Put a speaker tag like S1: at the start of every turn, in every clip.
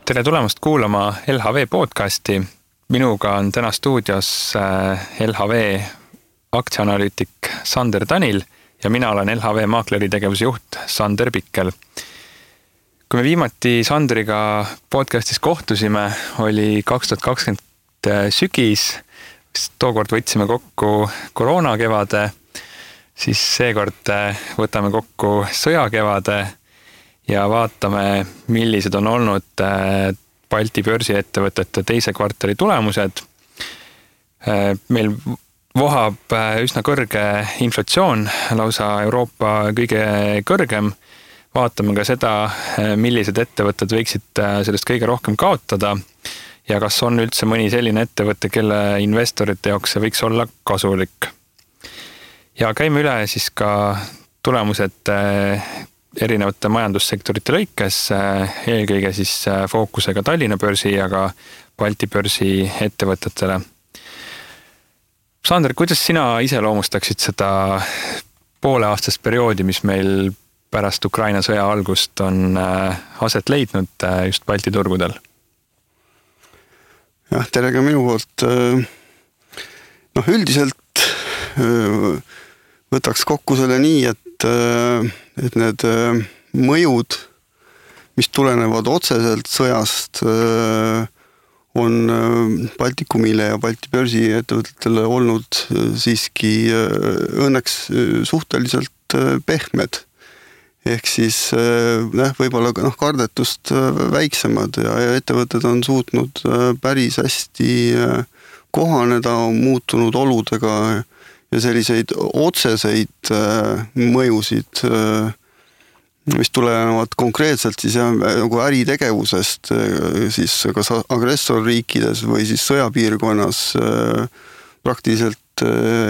S1: Tere tulemast kuulama LHV podcasti. Minuga on täna stuudios LHV aktsiaanalüütik Sander Tanil ja mina olen LHV maakleri tegevuse juht Sander Pikkel. Kui me viimati Sanderiga podcastis kohtusime, oli 2020 sügis, tookord võtsime kokku koroonakevade, siis seekord võtame kokku sõjakevade ja vaatame, millised on olnud Balti börsiettevõtete teise kvartali tulemused. Meil vohab üsna kõrge inflatsioon, lausa Euroopa kõige kõrgem. Vaatame ka seda, millised ettevõtted võiksid sellest kõige rohkem kaotada ja kas on üldse mõni selline ettevõte, kelle investorite jaoks see võiks olla kasulik. Ja käime üle siis ka tulemused erinevate majandussektorite lõikes, eelkõige siis fookusega Tallinna börsi ja ka Balti börsi ettevõtetele. Sander, kuidas sina iseloomustaksid seda pooleaastast perioodi, mis meil pärast Ukraina sõja algust on aset leidnud just Balti turgudel?
S2: Jah, tere ka minu poolt. Üldiselt võtaks kokku selle nii, et need mõjud, mis tulenevad otseselt sõjast, on Baltikumile ja Balti börsi ettevõtetele olnud siiski õnneks suhteliselt pehmed. Ehk siis võib-olla kardetust väiksemad ja ettevõtted on suutnud päris hästi kohaneda muutunud oludega ja selliseid otseseid mõjusid, mis tulenevad konkreetselt siis nagu äritegevusest siis kas agressorriikides või siis sõjapiirkonnas praktiliselt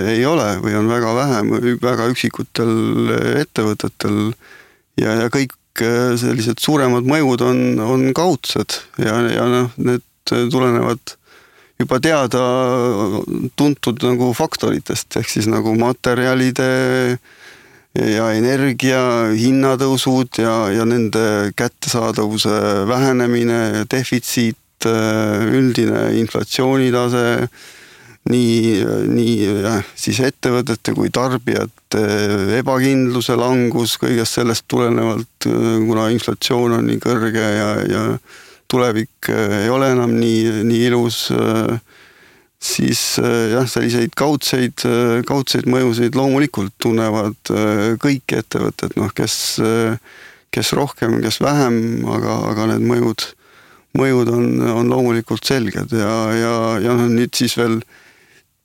S2: ei ole või on väga vähe, väga üksikutel ettevõtetel ja kõik sellised suuremad mõjud on kaudsed ja need tulenevad juba teada tuntud nagu faktoritest, ehk siis nagu materjalide ja energia hinnatõusud ja nende kättesaadavuse vähenemine, defitsiit, üldine inflatsioonitase, nii siis ettevõtete kui tarbijate ebakindluse langus, kõigest sellest tulenevalt, kuna inflatsioon on nii kõrge ja tulevik ei ole enam nii ilus, siis selliseid kaudseid mõjusid loomulikult tunnevad kõik ettevõtted, kes rohkem, kes vähem, aga need mõjud on loomulikult selged ja nüüd siis veel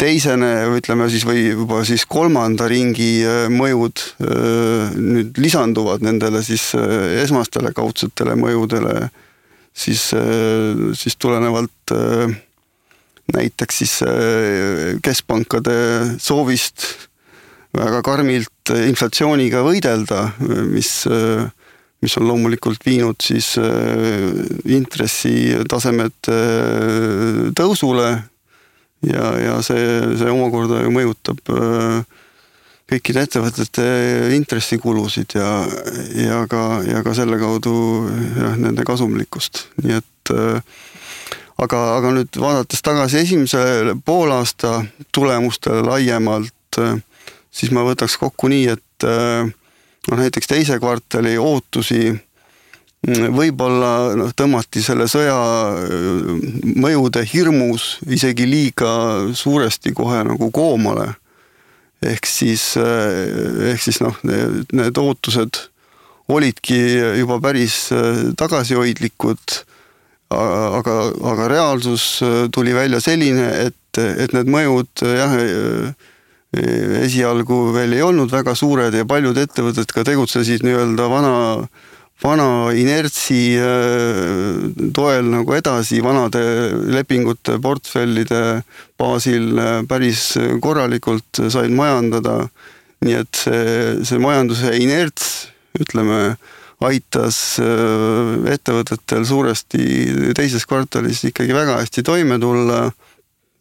S2: teisene, ütleme siis või juba siis kolmanda ringi mõjud nüüd lisanduvad nendele siis esmastele kaudsetele mõjudele, siis tulenevalt näiteks siis keskpankade soovist väga karmilt inflatsiooniga võidelda, mis on loomulikult viinud siis intressitasemed tõusule ja see omakorda ju mõjutab kõikide ettevõtete intressikulusid ja ka selle kaudu nende kasumlikkust. Nii et aga nüüd vaadates tagasi esimese poolaasta tulemustele laiemalt, siis ma võtaks kokku nii, et näiteks teise kvartali ootusi võib-olla tõmmati selle sõja mõjude hirmus isegi liiga suuresti kohe nagu koomale. Ehk siis need ootused olidki juba päris tagasihoidlikud, aga reaalsus tuli välja selline, et need mõjud esialgu veel ei olnud väga suured ja paljud ettevõtted ka tegutsesid nii-öelda vana inertsi toel nagu edasi, vanade lepingute portfellide baasil päris korralikult said majandada. Nii et see majanduse inerts, ütleme, aitas ettevõtetel suuresti teises kvartalis ikkagi väga hästi toime tulla.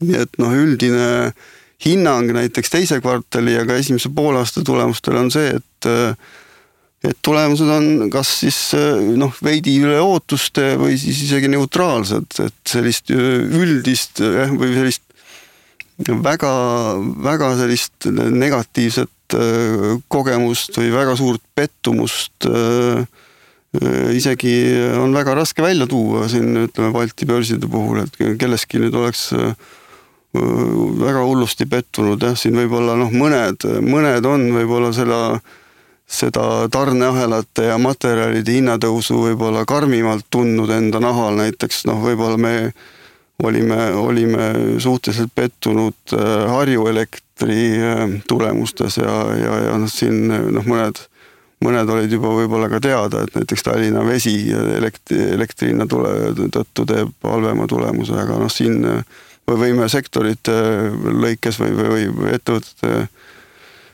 S2: Nii et üldine hinnang näiteks teise kvartali ja ka esimese poolaasta tulemustel on see, et et tulemused on kas siis veidi üle ootuste või siis isegi neutraalsed, et sellist üldist või sellist väga, väga sellist negatiivset kogemust või väga suurt pettumust isegi on väga raske välja tuua siin, ütleme, Balti börside puhul, et kelleski nüüd oleks väga hullusti pettunud, siin võib-olla mõned on võib-olla seda tarneahelate ja materjalide hinnatõusu võib-olla karmimalt tundnud enda nahal, näiteks võib-olla me olime suhteliselt pettunud Harju Elektri tulemustes ja siin mõned olid juba võib-olla ka teada, et näiteks Tallinna Vesi elektrihinna tõttu teeb halvema tulemuse, aga siin võime sektorite lõikes või ettevõtete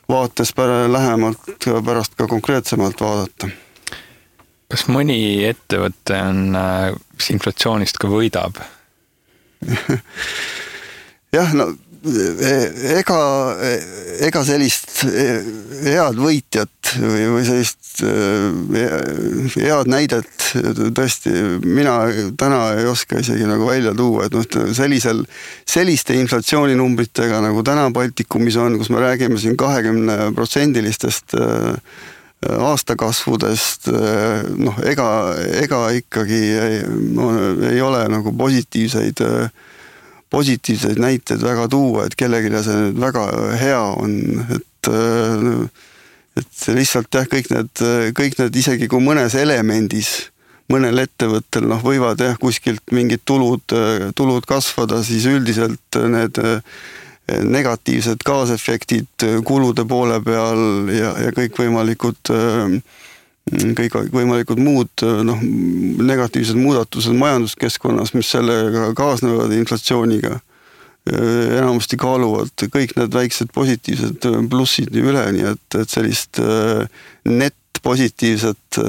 S2: vaates lähemalt pärast ka konkreetsemalt vaadata.
S1: Kas mõni ettevõte on inflatsioonist ka võidab?
S2: Jah, ega sellist head võitjat või sellist head näidet tõesti mina täna ei oska isegi välja tuua, et selliste inflatsiooninumbritega nagu täna Baltikumis on, kus me räägime siin 20%-listest aastakasvudest, ega ikkagi ei ole positiivseid näiteid väga tuua, et kellelegi see nüüd väga hea on, et lihtsalt kõik need isegi kui mõnes elemendis, mõnel ettevõttel võivad kuskilt mingid tulud kasvada, siis üldiselt need negatiivsed kaasefektid kulude poole peal ja kõikvõimalikud muud negatiivsed muudatused majanduskeskkonnas, mis sellega kaasnevad inflatsiooniga, enamasti kaaluvad kõik need väiksed positiivsed plussid üle, nii et sellist net-positiivset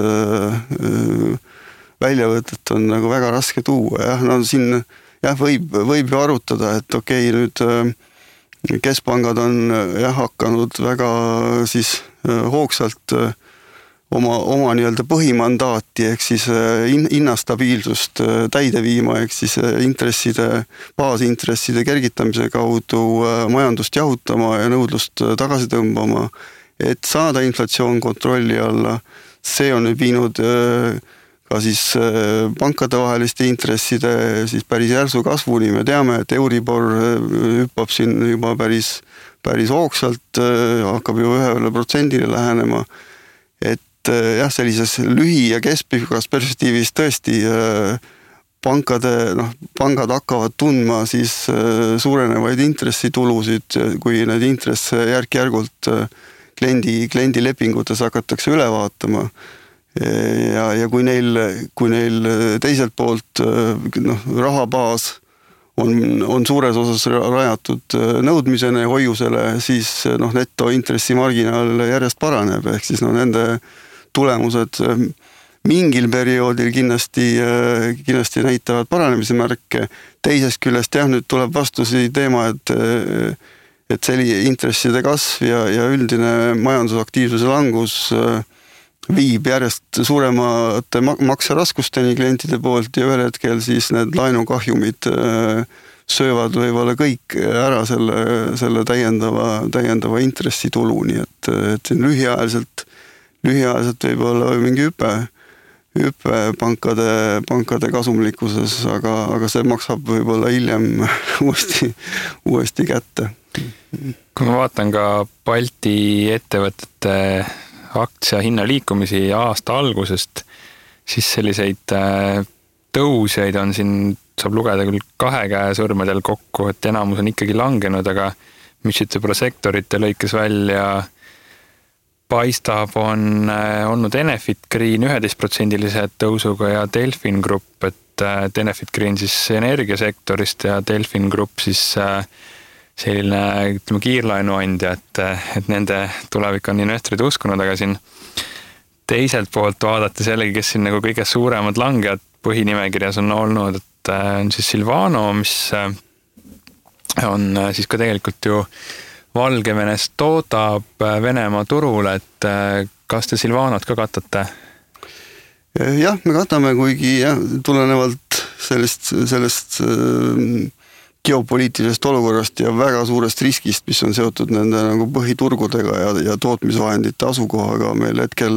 S2: väljavõtet on väga raske tuua. Siin võib ju arutada, et okei, nüüd keskpangad on hakanud väga siis hoogsalt oma nii-öelda põhimandaati ehk siis hinnastabiilsust täide viima, ehk siis baasintresside kergitamise kaudu majandust jahutama ja nõudlust tagasi tõmbama, et saada inflatsioon kontrolli alla. See on nüüd viinud ka siis pankade vaheliste intresside siis päris järsu kasvuni. Me teame, et Euribor hüppab siin juba päris hoogsalt, hakkab ju 1% lähenema. Et sellises lühi- ja keskpikas perspektiivis tõesti pangad hakkavad tundma siis suurenevaid intressitulusid, kui need intresse järk-järgult kliendi lepingutes hakatakse üle vaatama. Ja kui neil teiselt poolt rahabaas on suures osas rajatud nõudmisene ja hoiusele, siis netointressimarginaal järjest paraneb, ehk siis nende tulemused mingil perioodil kindlasti näitavad paranemise märke. Teisest küljest nüüd tuleb vastusi teema, et selline intresside kasv ja üldine majandusaktiivsuse langus viib järjest suuremate makseraskusteni klientide poolt ja ühel hetkel siis need laenukahjumid söövad võib-olla kõik ära selle täiendava intressitulu, nii et lühiajaliselt võib-olla mingi hüpe pankade kasumlikkuses, aga see maksab võib-olla hiljem uuesti kätte.
S1: Kui ma vaatan ka Balti ettevõtete aktsia hinna liikumisi aasta algusest, siis selliseid tõusjaid on siin, saab lugeda küll 2 käe sõrmedel kokku, et enamus on ikkagi langenud, aga mis võib-olla sektorite lõikes välja paistab, on olnud Enefit Green 11% tõusuga ja Delfin Grupp, et Enefit Green siis energiasektorist ja Delfin Grupp siis selline kiirlaenuandja, et nende tulevik on investorid uskunud, aga siin teiselt poolt vaadates jällegi, kes siin kõige suuremad langejad põhinimekirjas on olnud, et on siis Silvano, mis on siis ka tegelikult ju Valgevenest toodab Venemaa turul, et kas te Silvanot ka katate?
S2: Jah, me katame, kuigi tulenevalt sellest geopoliitilisest olukorrast ja väga suurest riskist, mis on seotud nende nagu põhiturgudega ja tootmisvahendite asukohaga, meil hetkel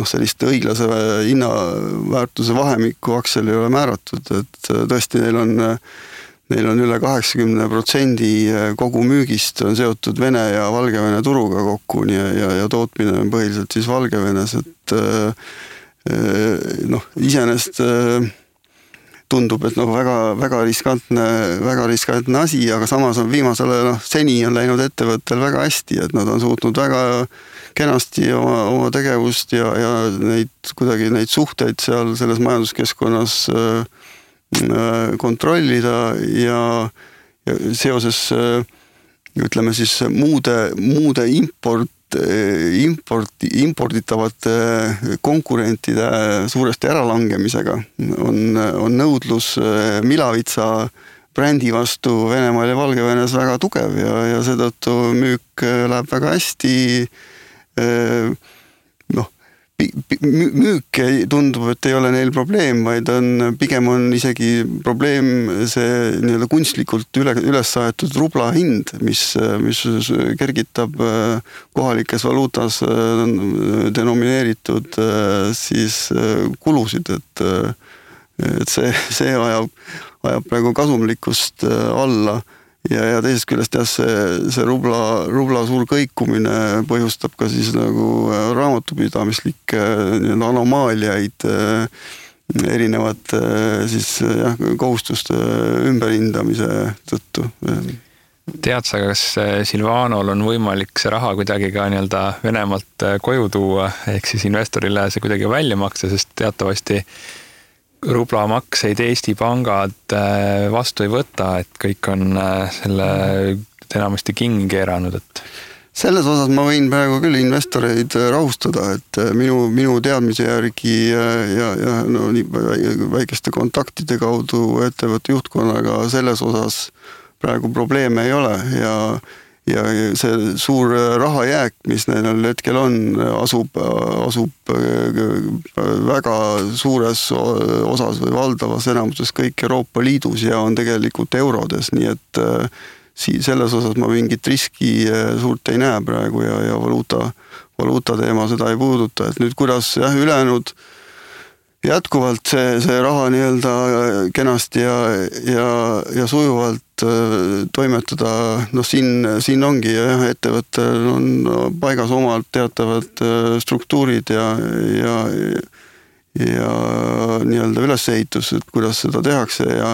S2: sellist õiglase hinnaväärtuse vahemikku aktsial ei ole määratud, et tõesti neil on üle 80% kogu müügist on seotud Vene ja Valgevene turuga kokku ja tootmine on põhiliselt siis Valgevenes, et iseenesest tundub, et väga riskantne asi, aga samas on seni on läinud ettevõttel väga hästi, et nad on suutnud väga kenasti oma tegevust ja neid suhteid seal selles majanduskeskkonnas kontrollida ja seoses ütleme siis muude imporditavate konkurentide suuresti äralangemisega on nõudlus Milavitsa brändi vastu Venemaal ja Valgevenes väga tugev ja seetõttu müük läheb väga hästi. Müük tundub, et ei ole neil probleem, vaid pigem on isegi probleem see nii-öelda kunstlikult üles saetud rubla hind, mis kergitab kohalikes valuutas denomineeritud siis kulusid, et see ajab praegu kasumlikkust alla. Ja teisest küljest see rubla suur kõikumine põhjustab ka siis nagu raamatupidamislikke anomaaliaid erinevate siis kohustuste ümberhindamise tõttu.
S1: Tead sa, kas Silvanol on võimalik see raha kuidagi ka nii-öelda Venemaalt koju tuua, ehk siis investorile see kuidagi välja maksa, sest teatavasti rublamakseid Eesti pangad vastu ei võta, et kõik on selle enamasti kingi keeranud, et
S2: selles osas ma võin praegu küll investoreid rahustada, et minu teadmise järgi ja nii väikeste kontaktide kaudu ettevõtte juhtkonnaga selles osas praegu probleeme ei ole ja see suur rahajääk, mis neil hetkel on, asub väga suures osas või valdavas enamuses kõik Euroopa Liidus ja on tegelikult eurodes, nii et selles osas ma mingit riski suurt ei näe praegu ja valuuta teema seda ei puuduta, et nüüd kuidas ülejäänud jätkuvalt see raha nii-öelda kenasti ja sujuvalt toimetada, siin ongi ettevõttel on paigas omalt teatavad struktuurid ja nii-öelda ülesehitus, et kuidas seda tehakse ja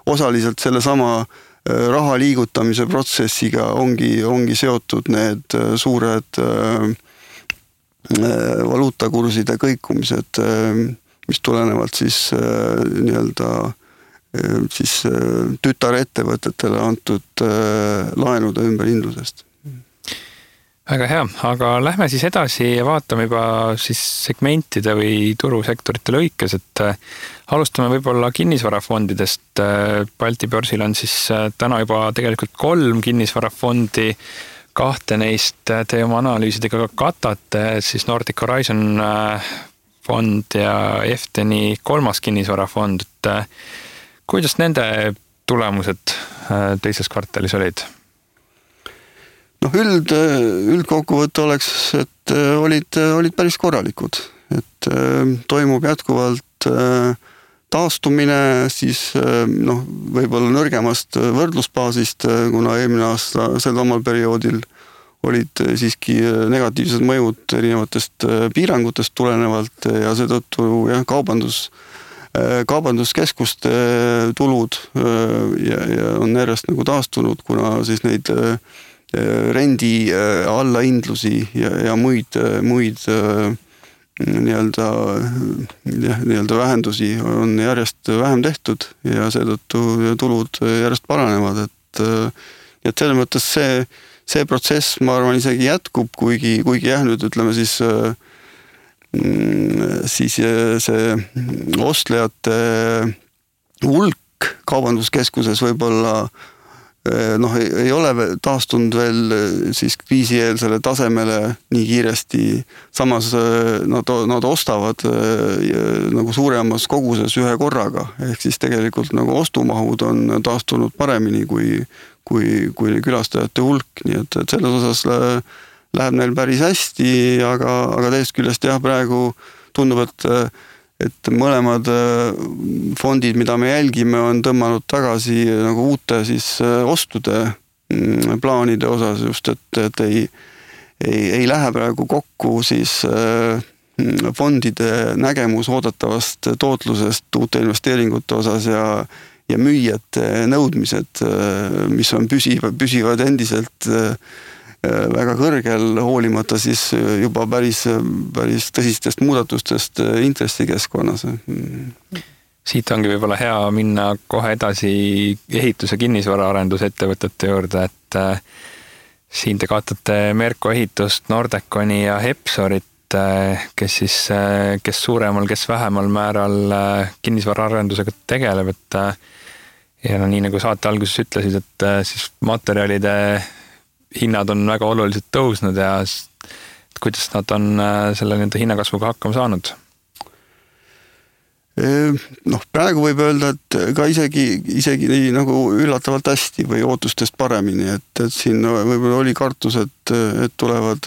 S2: osaliselt sellesama raha liigutamise protsessiga ongi seotud need suured valuutakurside kõikumised, mis tulenevad siis nii-öelda siis tütarettevõtetele antud laenude ümberhindlusest.
S1: Väga hea, aga lähme siis edasi ja vaatame juba siis segmentide või turusektorite lõikes, et alustame võib-olla kinnisvarafondidest. Balti börsil on siis täna juba tegelikult 3 kinnisvarafondi, 2 neist te oma analüüsidega katate, siis Nordic Horizon fond ja Efteni 3. kinnisvarafond. Kuidas nende tulemused teises kvartalis olid?
S2: Üldkokkuvõte oleks, et olid päris korralikud, et toimub jätkuvalt taastumine siis võib-olla nõrgemast võrdlusbaasist, kuna eelmine aasta sel omal perioodil olid siiski negatiivsed mõjud erinevatest piirangutest tulenevalt ja seetõttu kaubanduskeskuste tulud ja on järjest nagu taastunud, kuna siis neid rendi allahindlusi ja muid nii-öelda vähendusi on järjest vähem tehtud ja seetõttu tulud järjest paranevad, et selles mõttes see protsess, ma arvan, isegi jätkub, kuigi nüüd ütleme siis see ostlejate hulk kaubanduskeskuses võib-olla noh, ei ole taastunud veel siis kriisieelsele tasemele nii kiiresti, samas nad ostavad nagu suuremas koguses ühe korraga, ehk siis tegelikult nagu ostumahud on taastunud paremini kui külastajate hulk, nii et selles osas läheb neil päris hästi, aga teisest küljest jah, praegu tundub, et mõlemad fondid, mida me jälgime, on tõmmanud tagasi nagu uute siis ostude plaanide osas just, et ei lähe praegu kokku siis fondide nägemus oodatavast tootlusest uute investeeringute osas ja müüjate nõudmised, mis on püsivad endiselt väga kõrgel, hoolimata siis juba päris tõsistest muudatustest intressikeskkonnas.
S1: Siit ongi võib-olla hea minna kohe edasi ehitus- ja kinnisvaraarendusettevõtete juurde, et siin te kaotate Merko ehitust, Nordeconi ja Hepsorit, kes suuremal, kes vähemal määral kinnisvaraarendusega tegeleb, et ja nii nagu saate alguses ütlesid, et siis materjalide hinnad on väga oluliselt tõusnud ja kuidas nad on selle nende hinnakasvuga hakkama saanud?
S2: Noh, praegu võib öelda, et ka isegi nagu üllatavalt hästi või ootustest paremini, et siin võib-olla oli kartus, et tulevad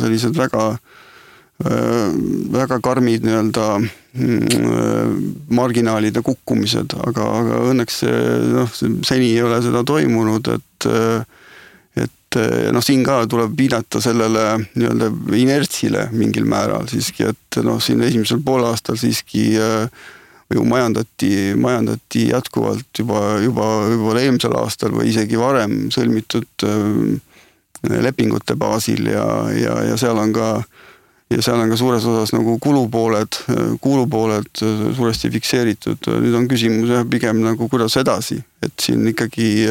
S2: sellised väga karmid nii-öelda marginaalide kukkumised, aga õnneks seni ei ole seda toimunud, et siin ka tuleb viidata sellele nii-öelda inertsile mingil määral siiski, et siin esimesel poolaastal siiski ju majandati jätkuvalt juba eelmisel aastal või isegi varem sõlmitud lepingute baasil ja seal on ka suures osas nagu kulupooled suuresti fikseeritud. Nüüd on küsimus pigem nagu kuidas edasi, et siin ikkagi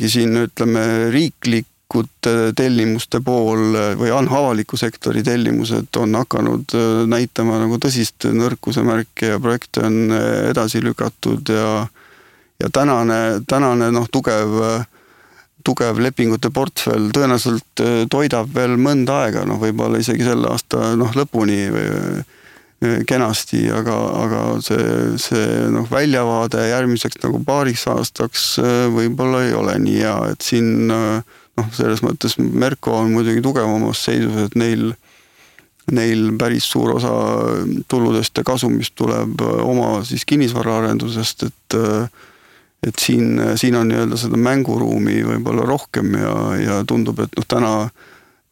S2: siin ütleme riiklikud tellimuste pool või avaliku sektori tellimused on hakanud näitama nagu tõsist nõrkuse märke ja projekte on edasi lükatud ja tänane tugev lepingute portfell tõenäoliselt toidab veel mõnda aega, võib-olla isegi selle aasta lõpuni kenasti, aga see väljavaade järgmiseks nagu paariks aastaks võib-olla ei ole nii hea, et siin selles mõttes Merko on muidugi tugevamas seisus, et neil päris suur osa tuludest ja kasumist tuleb oma siis kinnisvaraarendusest, et siin on nii-öelda seda mänguruumi võib-olla rohkem ja tundub, et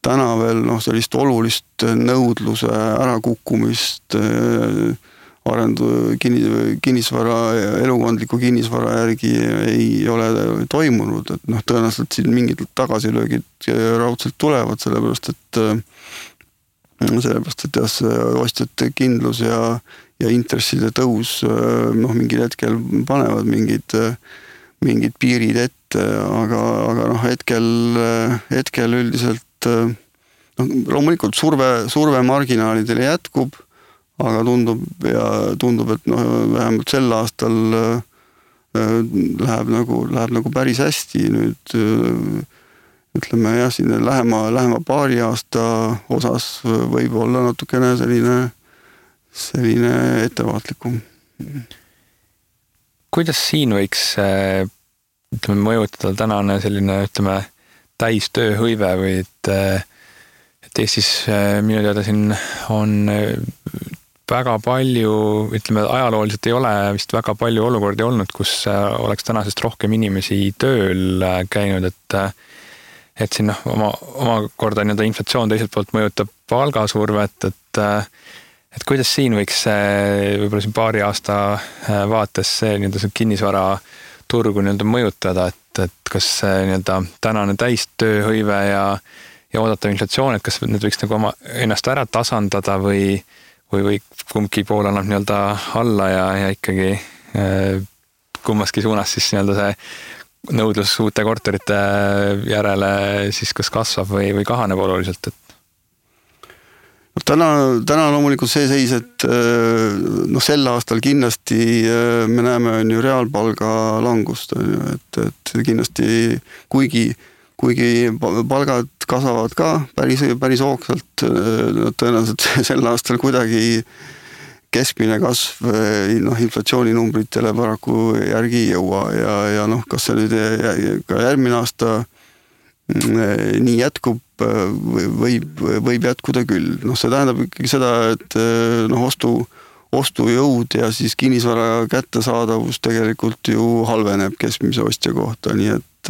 S2: täna veel sellist olulist nõudluse ärakukkumist kinnisvara, elukondliku kinnisvara järgi ei ole toimunud, et tõenäoliselt siin mingid tagasilöögid raudselt tulevad, sellepärast et ostjate kindlus ja intresside tõus mingil hetkel panevad mingid piirid ette, aga hetkel üldiselt loomulikult surve marginaalidele jätkub, aga tundub, et vähemalt sel aastal läheb nagu päris hästi. Nüüd ütleme jah, siin lähema paari aasta osas võib olla natukene selline ettevaatlikum.
S1: Kuidas siin võiks mõjutada tänane selline täistööhõive või et Eestis minu teada siin on väga palju, ajalooliselt ei ole vist väga palju olukordi olnud, kus oleks tänasest rohkem inimesi tööl käinud, et siin omakorda inflatsioon teiselt poolt mõjutab palgasurvet, et kuidas siin võiks võib-olla siin paari aasta vaates see kinnisvara turgu mõjutada, et kas tänane täistööhõive ja oodatav inflatsioon, et kas need võiks ennast ära tasandada või kumbki pool annab alla ja ikkagi kummaski suunas siis see nõudlus uute korterite järele siis kas kasvab või kahaneb oluliselt, et
S2: Täna loomulikult see seis, et sel aastal kindlasti me näeme on ju reaalpalga langust, et kindlasti kuigi palgad kasvavad ka päris hoogsalt, tõenäoliselt sel aastal kuidagi keskmine kasv inflatsiooninumbritele paraku järgi ei jõua ja kas see nüüd ka järgmine aasta nii jätkub, võib jätkuda küll. See tähendab ikkagi seda, et ostujõud ja siis kinnisvara kättesaadavus tegelikult ju halveneb keskmise ostja kohta, nii et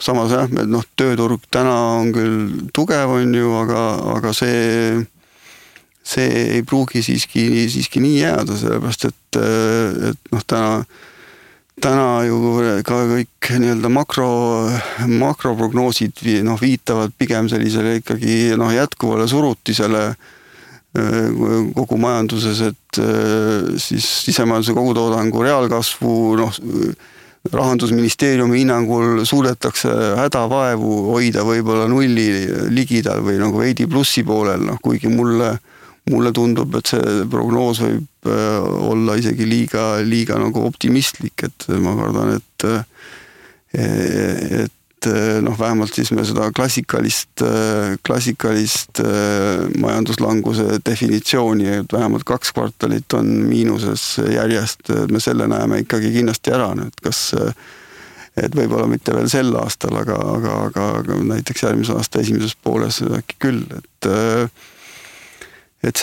S2: samas tööturg täna on küll tugev on ju, aga see ei pruugi siiski nii jääda, sellepärast et täna ju ka kõik nii-öelda makroprognoosid viitavad pigem sellisele ikkagi jätkuvale surutisele kogu majanduses, et siis sisemajanduse kogutoodangu reaalkasvu Rahandusministeeriumi hinnangul suudetakse hädavaevu hoida võib-olla nulli ligidal või veidi plussi poolel, kuigi mulle tundub, et see prognoos võib olla isegi liiga optimistlik, et ma kardan, et vähemalt siis me seda klassikalist majanduslanguse definitsiooni, et vähemalt 2 kvartalit on miinuses järjest, me selle näeme ikkagi kindlasti ära, et võib-olla mitte veel sel aastal, aga näiteks järgmise aasta esimeses pooles äkki küll, et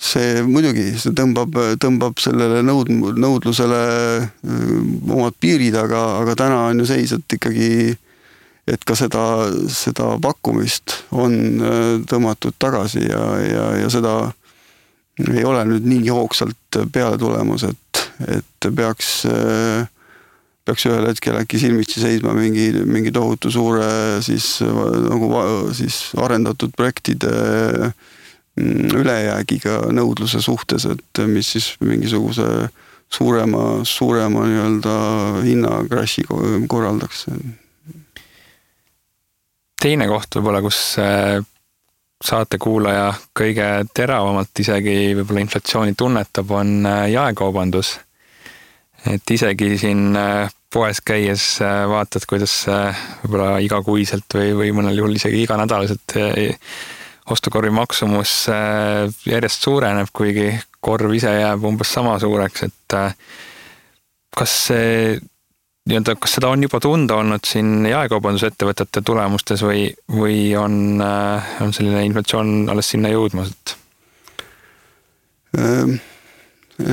S2: see muidugi, see tõmbab sellele nõudlusele omad piirid, aga täna on ju seis, et ikkagi, et ka seda pakkumist on tõmmatud tagasi ja seda ei ole nüüd nii hoogsalt peale tulemus, et peaks ühel hetkel äkki silmitsi seisma mingi tohutu suure siis arendatud projektide ülejäägiga nõudluse suhtes, et mis siis mingisuguse suurema nii-öelda hinnakrassi korraldaks.
S1: Teine koht võib-olla, kus saatekuulaja kõige teravamalt isegi võib-olla inflatsiooni tunnetab, on jaekaubandus. Et isegi siin poes käies vaatad, kuidas võib-olla igakuiselt või mõnel juhul isegi iganädalaselt ostukorvi maksumus järjest suureneb, kuigi korv ise jääb umbes sama suureks, et kas seda on juba tunda olnud siin jaekaubandusettevõtete tulemustes või on selline inflatsioon alles sinna jõudmas?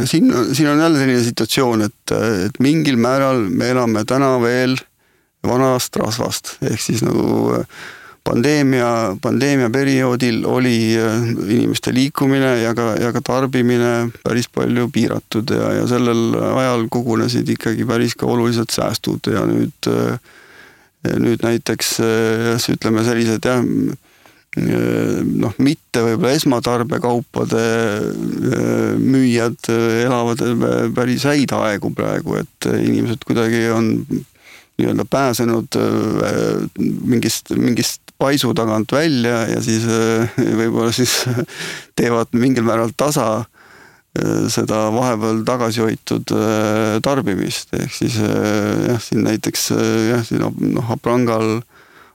S2: Siin on jälle selline situatsioon, et mingil määral me elame täna veel vanast rasvast, ehk siis pandeemia perioodil oli inimeste liikumine ja ka tarbimine päris palju piiratud ja sellel ajal kogunesid ikkagi päris ka olulised säästud ja nüüd näiteks ütleme sellised mitte võib-olla esmatarbekaupade müüjad elavad päris häid aegu praegu, et inimesed kuidagi on nii-öelda pääsenud mingist paisu tagant välja ja siis võib-olla siis teevad mingil määral tasa seda vahepeal tagasi hoitud tarbimist, ehk siis siin näiteks siin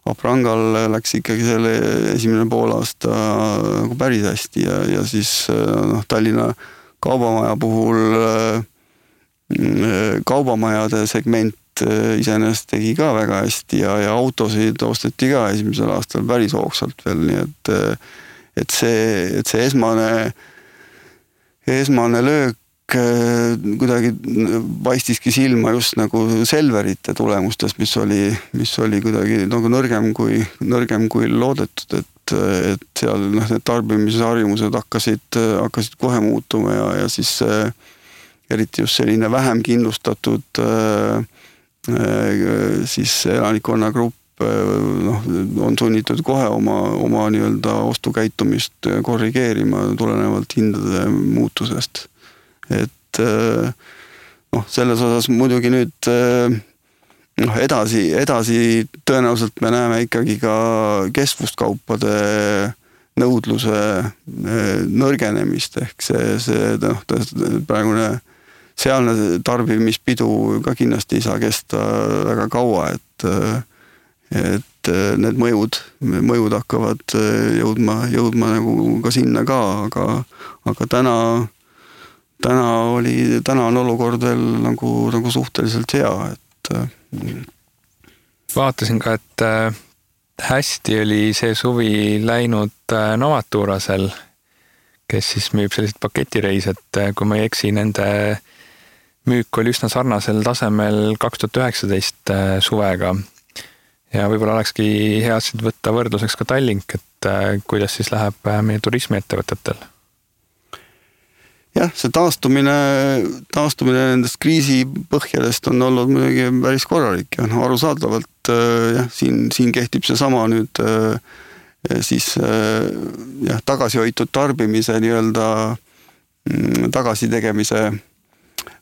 S2: Aprangal läks ikkagi selle esimene poolaasta päris hästi ja siis Tallinna kaubamaja puhul kaubamajade segment iseenesest tegi ka väga hästi ja autosid osteti ka esimesel aastal päris hoogsalt veel, nii et see esmane löök kuidagi paistiski silma just nagu Selverite tulemustes, mis oli kuidagi nõrgem kui loodetud, et seal need tarbimisharjumused hakkasid kohe muutuma ja siis eriti just selline vähem kindlustatud siis elanikkonnagrupp on sunnitud kohe oma nii-öelda ostukäitumist korrigeerima tulenevalt hindade muutusest. Et selles osas muidugi nüüd edasi tõenäoliselt me näeme ikkagi ka kestvuskaupade nõudluse nõrgenemist, ehk see praegune sealne tarbimispidu ka kindlasti ei saa kesta väga kaua, et need mõjud hakkavad jõudma nagu ka sinna ka, aga täna on olukord veel nagu suhteliselt hea, et
S1: vaatasin ka, et hästi oli see suvi läinud Novaturasel, kes siis müüb sellised paketireis, et kui ma ei eksi, nende müük oli üsna sarnasel tasemel 2019 suvega. Ja võib-olla olekski hea võtta võrdluseks ka Tallink, et kuidas siis läheb meie turismiettevõtetel?
S2: Jah, see taastumine nendest kriisipõhjadest on olnud muidugi päris korralik ja arusaadavalt siin kehtib see sama nüüd siis tagasihoitud tarbimise nii-öelda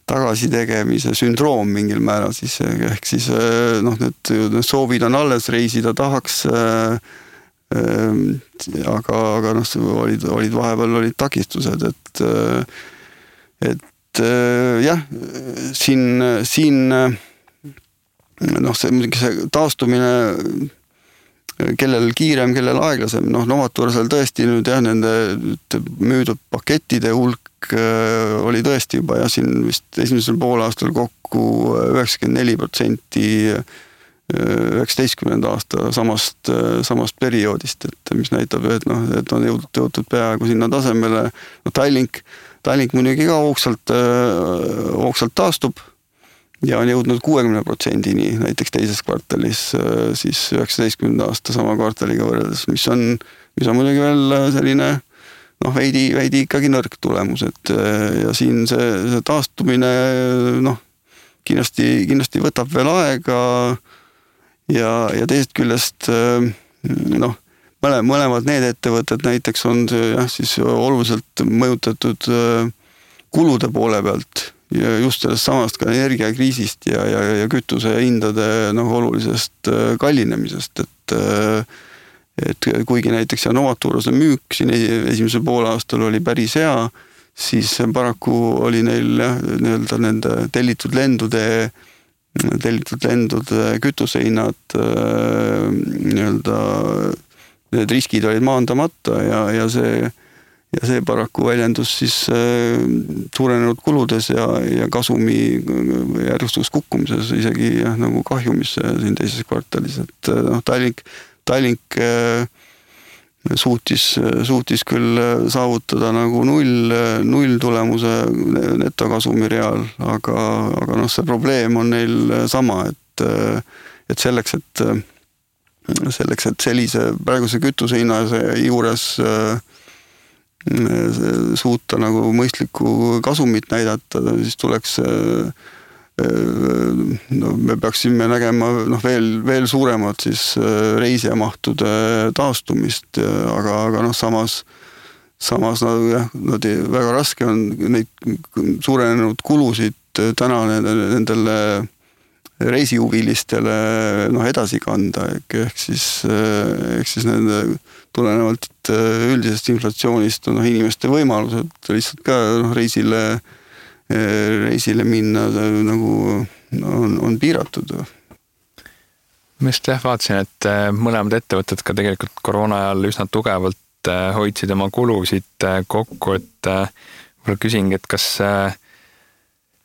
S2: tagasitegemise sündroom mingil määral siis, ehk siis need soovid on alles, reisida tahaks, aga olid vahepeal takistused, et jah, siin see taastumine, kellel kiirem, kellel aeglasem, Novaturasel tõesti nüüd nende müüdud pakettide hulk oli tõesti juba siin vist esimesel poolaastal kokku 94% 19. aasta samast perioodist, et mis näitab, et on jõutud peaaegu sinna tasemele. Tallink muidugi ka hoogsalt taastub ja on jõudnud 60%-ni näiteks teises kvartalis siis 19. aasta sama kvartaliga võrreldes, mis on muidugi veel selline veidi ikkagi nõrk tulemus, et ja siin see taastumine kindlasti võtab veel aega ja teisest küljest mõlemad need ettevõtted näiteks on siis oluliselt mõjutatud kulude poole pealt ja just sellest samast ka energiakriisist ja kütuse hindade olulisest kallinemisest, et kuigi näiteks Novaturase müük siin esimesel poolaastal oli päris hea, siis paraku oli neil nii-öelda nende tellitud lendude kütusehinnad nii-öelda need riskid olid maandamata ja see paraku väljendus siis suurenenud kuludes ja kasumi järjestus kukkumises, isegi nagu kahjumisse siin teises kvartalis, et Tallink suutis küll saavutada nagu null tulemuse netokasumi real, aga see probleem on neil sama, et selleks, et sellise praeguse kütuse hinna juures suuta nagu mõistlikku kasumit näidata, siis tuleks me peaksime nägema veel suuremat siis reisijamahtude taastumist, aga samas väga raske on neid suurenenud kulusid täna nendele reisihuvilistele edasi kanda, ehk siis nende tulenevalt üldisest inflatsioonist inimeste võimalused lihtsalt ka reisile minna nagu on piiratud.
S1: Ma just vaatasin, et mõlemad ettevõtted ka tegelikult koroona ajal üsna tugevalt hoidsid oma kulusid kokku, et võib-olla küsingi, et kas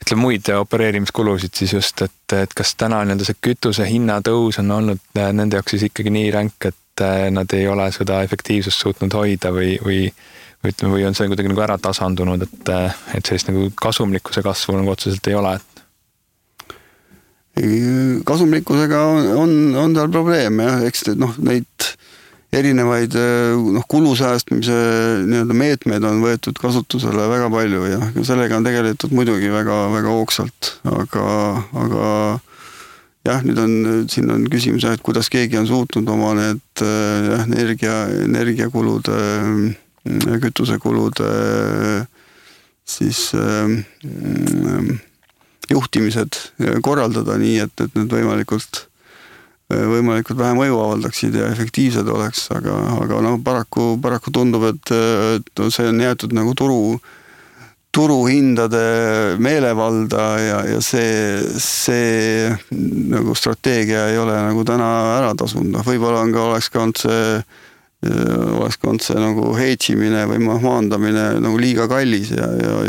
S1: ütleme muid opereerimiskulusid siis just, et kas täna see kütuse hinna tõus on olnud nende jaoks siis ikkagi nii ränk, et nad ei ole seda efektiivsust suutnud hoida või on see kuidagi nagu ära tasandunud, et sellist nagu kasumlikkuse kasvu nagu otseselt ei ole?
S2: Kasumlikkusega on tal probleem, eks neid erinevaid kulusäästmise nii-öelda meetmeid on võetud kasutusele väga palju ja sellega on tegeletud muidugi väga, väga hoogsalt, aga jah, siin on küsimus, et kuidas keegi on suutnud oma need energiakulude kütusekulude siis juhtimised korraldada nii, et need võimalikult vähe mõju avaldaksid ja efektiivsed oleks, aga noh, paraku tundub, et see on jäetud nagu turuhindade meelevalda ja see nagu strateegia ei ole nagu täna ära tasunud. Võib-olla oleks ka olnud see nagu heitsimine või maandamine nagu liiga kallis ja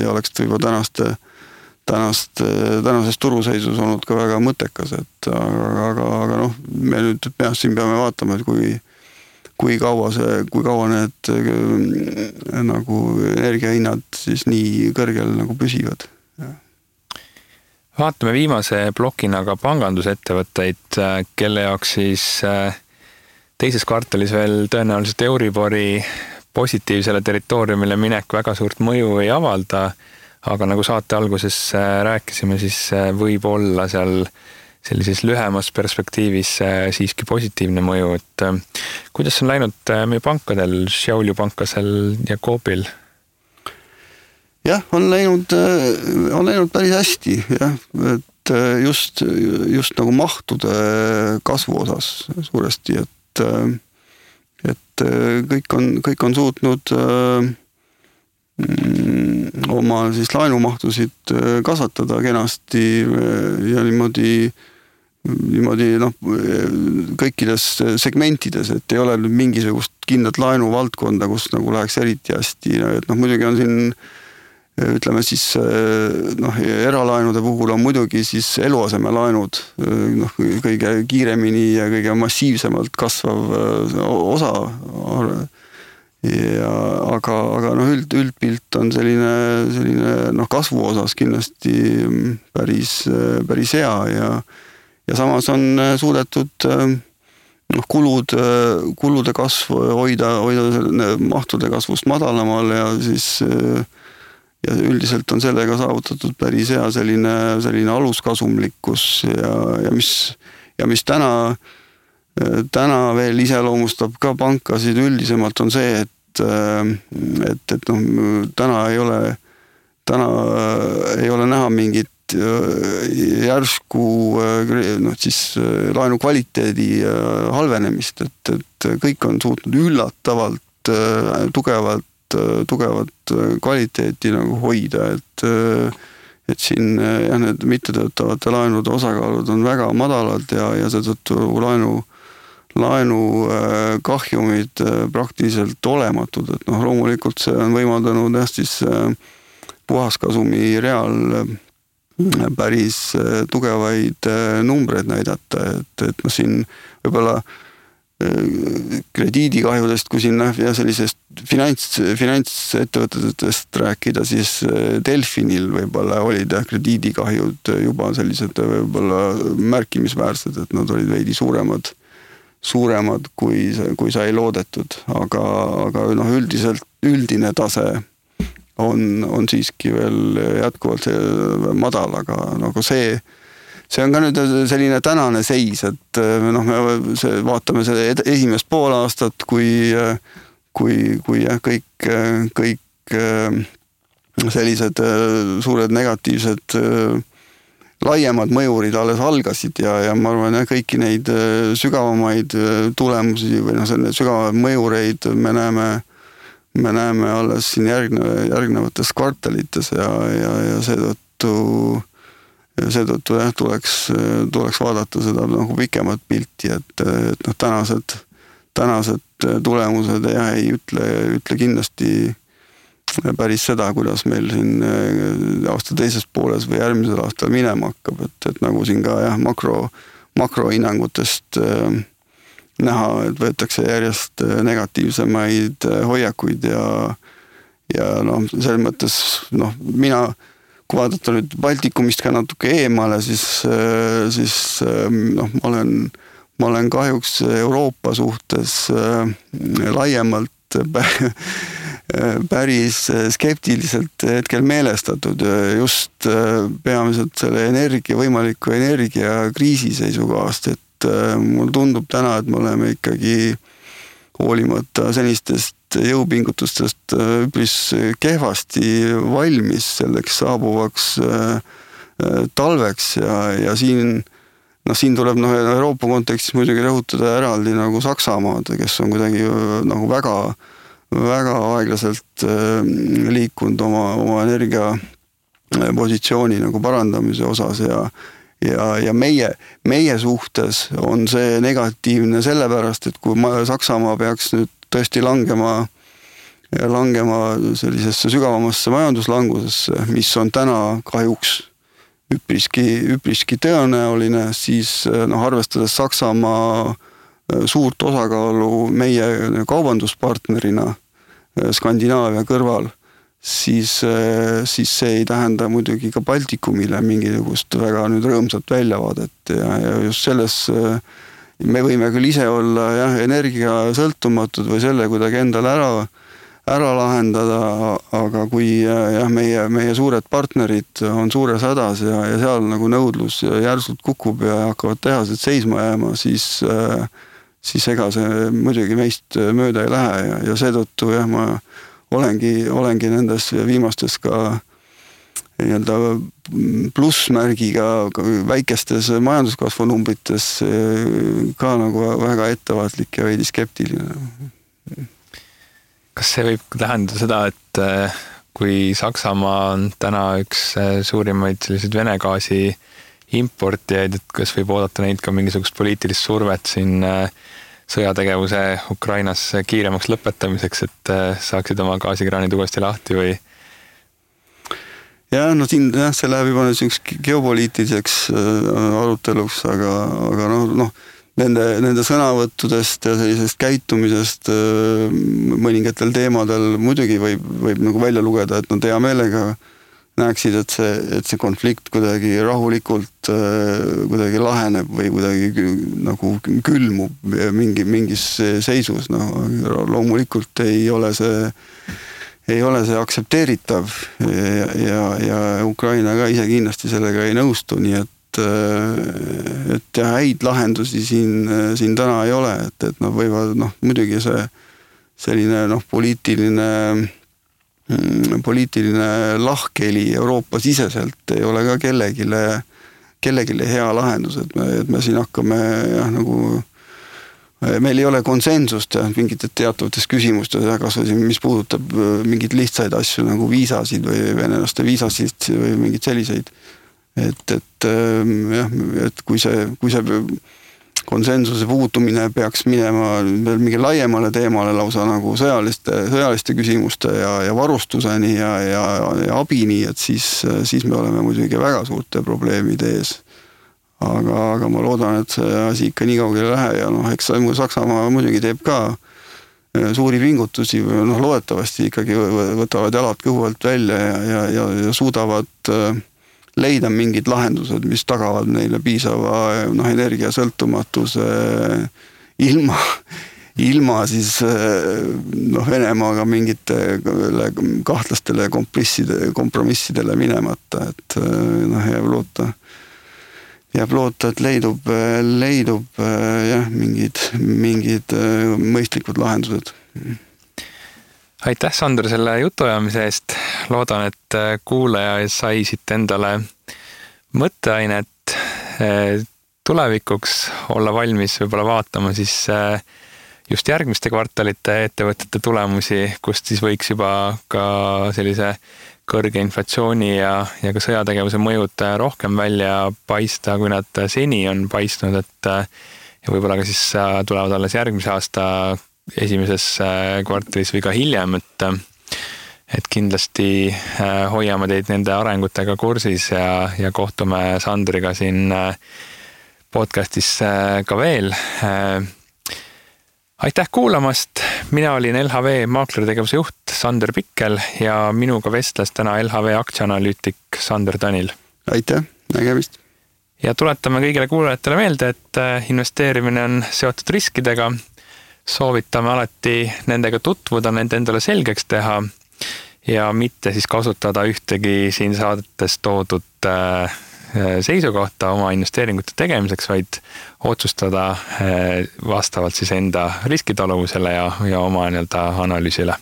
S2: oleks võib-olla tänases turuseisus olnud ka väga mõttekas, aga noh, me nüüd siin peame vaatama, et kui kaua need nagu energiahinnad siis nii kõrgel nagu püsivad.
S1: Vaatame viimase plokina ka pangandusettevõtteid, kelle jaoks siis teises kvartalis veel tõenäoliselt Euribori positiivsele territooriumile minek väga suurt mõju ei avalda, aga nagu saate alguses rääkisime, siis võib olla seal sellises lühemas perspektiivis siiski positiivne mõju, et kuidas on läinud meie pankadel, Šiauliu pankasel ja Coopil?
S2: Jah, on läinud päris hästi, jah, et just nagu mahtude kasvu osas suuresti, et kõik on suutnud oma siis laenumahtusid kasvatada kenasti ja niimoodi noh, kõikides segmentides, et ei ole nüüd mingisugust kindlat laenuvaldkonda, kus nagu läheks eriti hästi, et noh, muidugi on siin ütleme siis noh, eralaenude puhul on muidugi siis eluasemelaenud noh, kõige kiiremini ja kõige massiivsemalt kasvav osa ja aga noh, üldpilt on selline noh, kasvu osas kindlasti päris hea ja samas on suudetud noh, kulude kasvu hoida mahtude kasvust madalamal ja siis ja üldiselt on sellega saavutatud päris hea selline aluskasumlikkus ja mis täna veel iseloomustab ka pankasid üldisemalt on see, et noh, täna ei ole näha mingit järsku noh, siis laenu kvaliteedi halvenemist, et kõik on suutnud üllatavalt tugevat kvaliteeti nagu hoida, et siin jah, need mittetöötavate laenude osakaalud on väga madalad ja seetõttu laenu kahjumid praktiliselt olematud, et noh, loomulikult see on võimaldanud jah, siis puhaskasumi real päris tugevaid numbreid näidata, et noh, siin võib-olla krediidikahjudest, kui siin ja sellisest finantsettevõtetest rääkida, siis Delfinil võib-olla olid krediidikahjud juba sellised võib-olla märkimisväärsed, et nad olid veidi suuremad kui sai loodetud, aga noh, üldine tase on siiski veel jätkuvalt madal, aga nagu see on ka nüüd selline tänane seis, et noh, me vaatame selle esimest pool aastat, kui jah, kõik sellised suured negatiivsed laiemad mõjurid alles algasid ja ma arvan, et kõiki neid sügavamaid tulemusi või noh, sügavaid mõjureid me näeme alles siin järgnevates kvartalites ja seetõttu jah, tuleks vaadata seda nagu pikemat pilti, et noh, tänased tulemused jah, ei ütle kindlasti päris seda, kuidas meil siin aasta teises pooles või järgmisel aastal minema hakkab, et nagu siin ka jah, makrohinnangutest näha, et võetakse järjest negatiivsemaid hoiakuid ja noh, selles mõttes noh, kui vaadata nüüd Baltikumist ka natuke eemale, siis noh, ma olen kahjuks Euroopa suhtes laiemalt päris skeptiliselt hetkel meelestatud just peamiselt selle võimaliku energiakriisi seisukohast, et mul tundub täna, et me oleme ikkagi hoolimata senistest jõupingutustest üpris kehvasti valmis selleks saabuvaks talveks ja siin tuleb Euroopa kontekstis muidugi rõhutada eraldi nagu Saksamaad, kes on kuidagi nagu väga, väga aeglaselt liikunud oma energia positsiooni nagu parandamise osas ja meie suhtes on see negatiivne sellepärast, et kui Saksamaa peaks nüüd tõesti langema sellisesse sügavamasse majanduslangusesse, mis on täna kahjuks üpriski tõenäoline, siis arvestades Saksamaa suurt osakaalu meie kaubanduspartnerina Skandinaavia kõrval, siis see ei tähenda muidugi ka Baltikumile mingisugust väga nüüd rõõmsat väljavaadet ja just selles me võime küll ise olla energia sõltumatud või selle kuidagi endale ära lahendada, aga kui meie suured partnerid on suures hädas ja seal nagu nõudlus järsult kukub ja hakkavad tehased seisma jääma, siis ega see muidugi meist mööda ei lähe ja seetõttu ma olengi nendes viimastes ka nii-öelda plussmärgiga väikestes majanduskasvu numbrites ka nagu väga ettevaatlik ja veidi skeptiline.
S1: Kas see võib tähendada seda, et kui Saksamaa on täna üks suurimaid selliseid Vene gaasi importijaid, et kas võib oodata neid ka mingisugust poliitilist survet siin sõjategevuse Ukrainas kiiremaks lõpetamiseks, et saaksid oma gaasikraanid uuesti lahti või?
S2: Siin see läheb juba geopoliitiliseks aruteluks, aga nende sõnavõttudest ja sellisest käitumisest mõningatel teemadel muidugi võib nagu välja lugeda, et nad hea meelega näeksid, et see konflikt kuidagi rahulikult kuidagi laheneb või kuidagi nagu külmub mingis seisus. Loomulikult ei ole see aktsepteeritav ja Ukraina ka ise kindlasti sellega ei nõustu, nii et häid lahendusi siin täna ei ole, et nad võivad muidugi see selline poliitiline lahkheli Euroopa siseselt ei ole ka kellegile hea lahendus, et me siin hakkame meil ei ole konsensust mingite teatavates küsimustes, kas mis puudutab mingeid lihtsaid asju nagu viisasid või venelaste viisasid või mingeid selliseid. Et kui see konsensuse puutumine peaks minema mingi laiemale teemale lausa nagu sõjaliste küsimuste ja varustuseni ja abini, et siis me oleme muidugi väga suurte probleemide ees. Aga ma loodan, et see asi ikka nii kaugele ei lähe ja eks Saksamaa muidugi teeb ka suuri pingutusi, loodetavasti ikkagi võtavad jalad kõhu alt välja ja suudavad leida mingid lahendused, mis tagavad neile piisava energiasõltumatuse ilma siis Venemaaga mingite kahtlastele kompromissidele minemata, et jääb loota, et leidub mingid mõistlikud lahendused.
S1: Aitäh, Sander, selle jutuajamise eest. Loodan, et kuulaja sai siit endale mõtteainet tulevikuks olla valmis võib-olla vaatama siis just järgmiste kvartalite ettevõtete tulemusi, kust siis võiks juba ka sellise kõrge inflatsiooni ja ka sõjategevuse mõjud rohkem välja paista, kui nad seni on paistnud, et ja võib-olla ka siis tulevad alles järgmise aasta esimeses kvartalis või ka hiljem, et kindlasti hoiame teid nende arengutega kursis ja kohtume Sandriga siin podcastis ka veel. Aitäh kuulamast! Mina olin LHV maaklertegevuse juht Sander Pikkel ja minuga vestles täna LHV aktsianalüütik Sander Tanil.
S2: Aitäh, nägemist!
S1: Ja tuletame kõigile kuulajatele meelde, et investeerimine on seotud riskidega. Soovitame alati nendega tutvuda, nende endale selgeks teha ja mitte siis kasutada ühtegi siin saadetes toodud seisukohta oma investeeringute tegemiseks, vaid otsustada vastavalt siis enda riskitaluvusele ja oma analüüsile.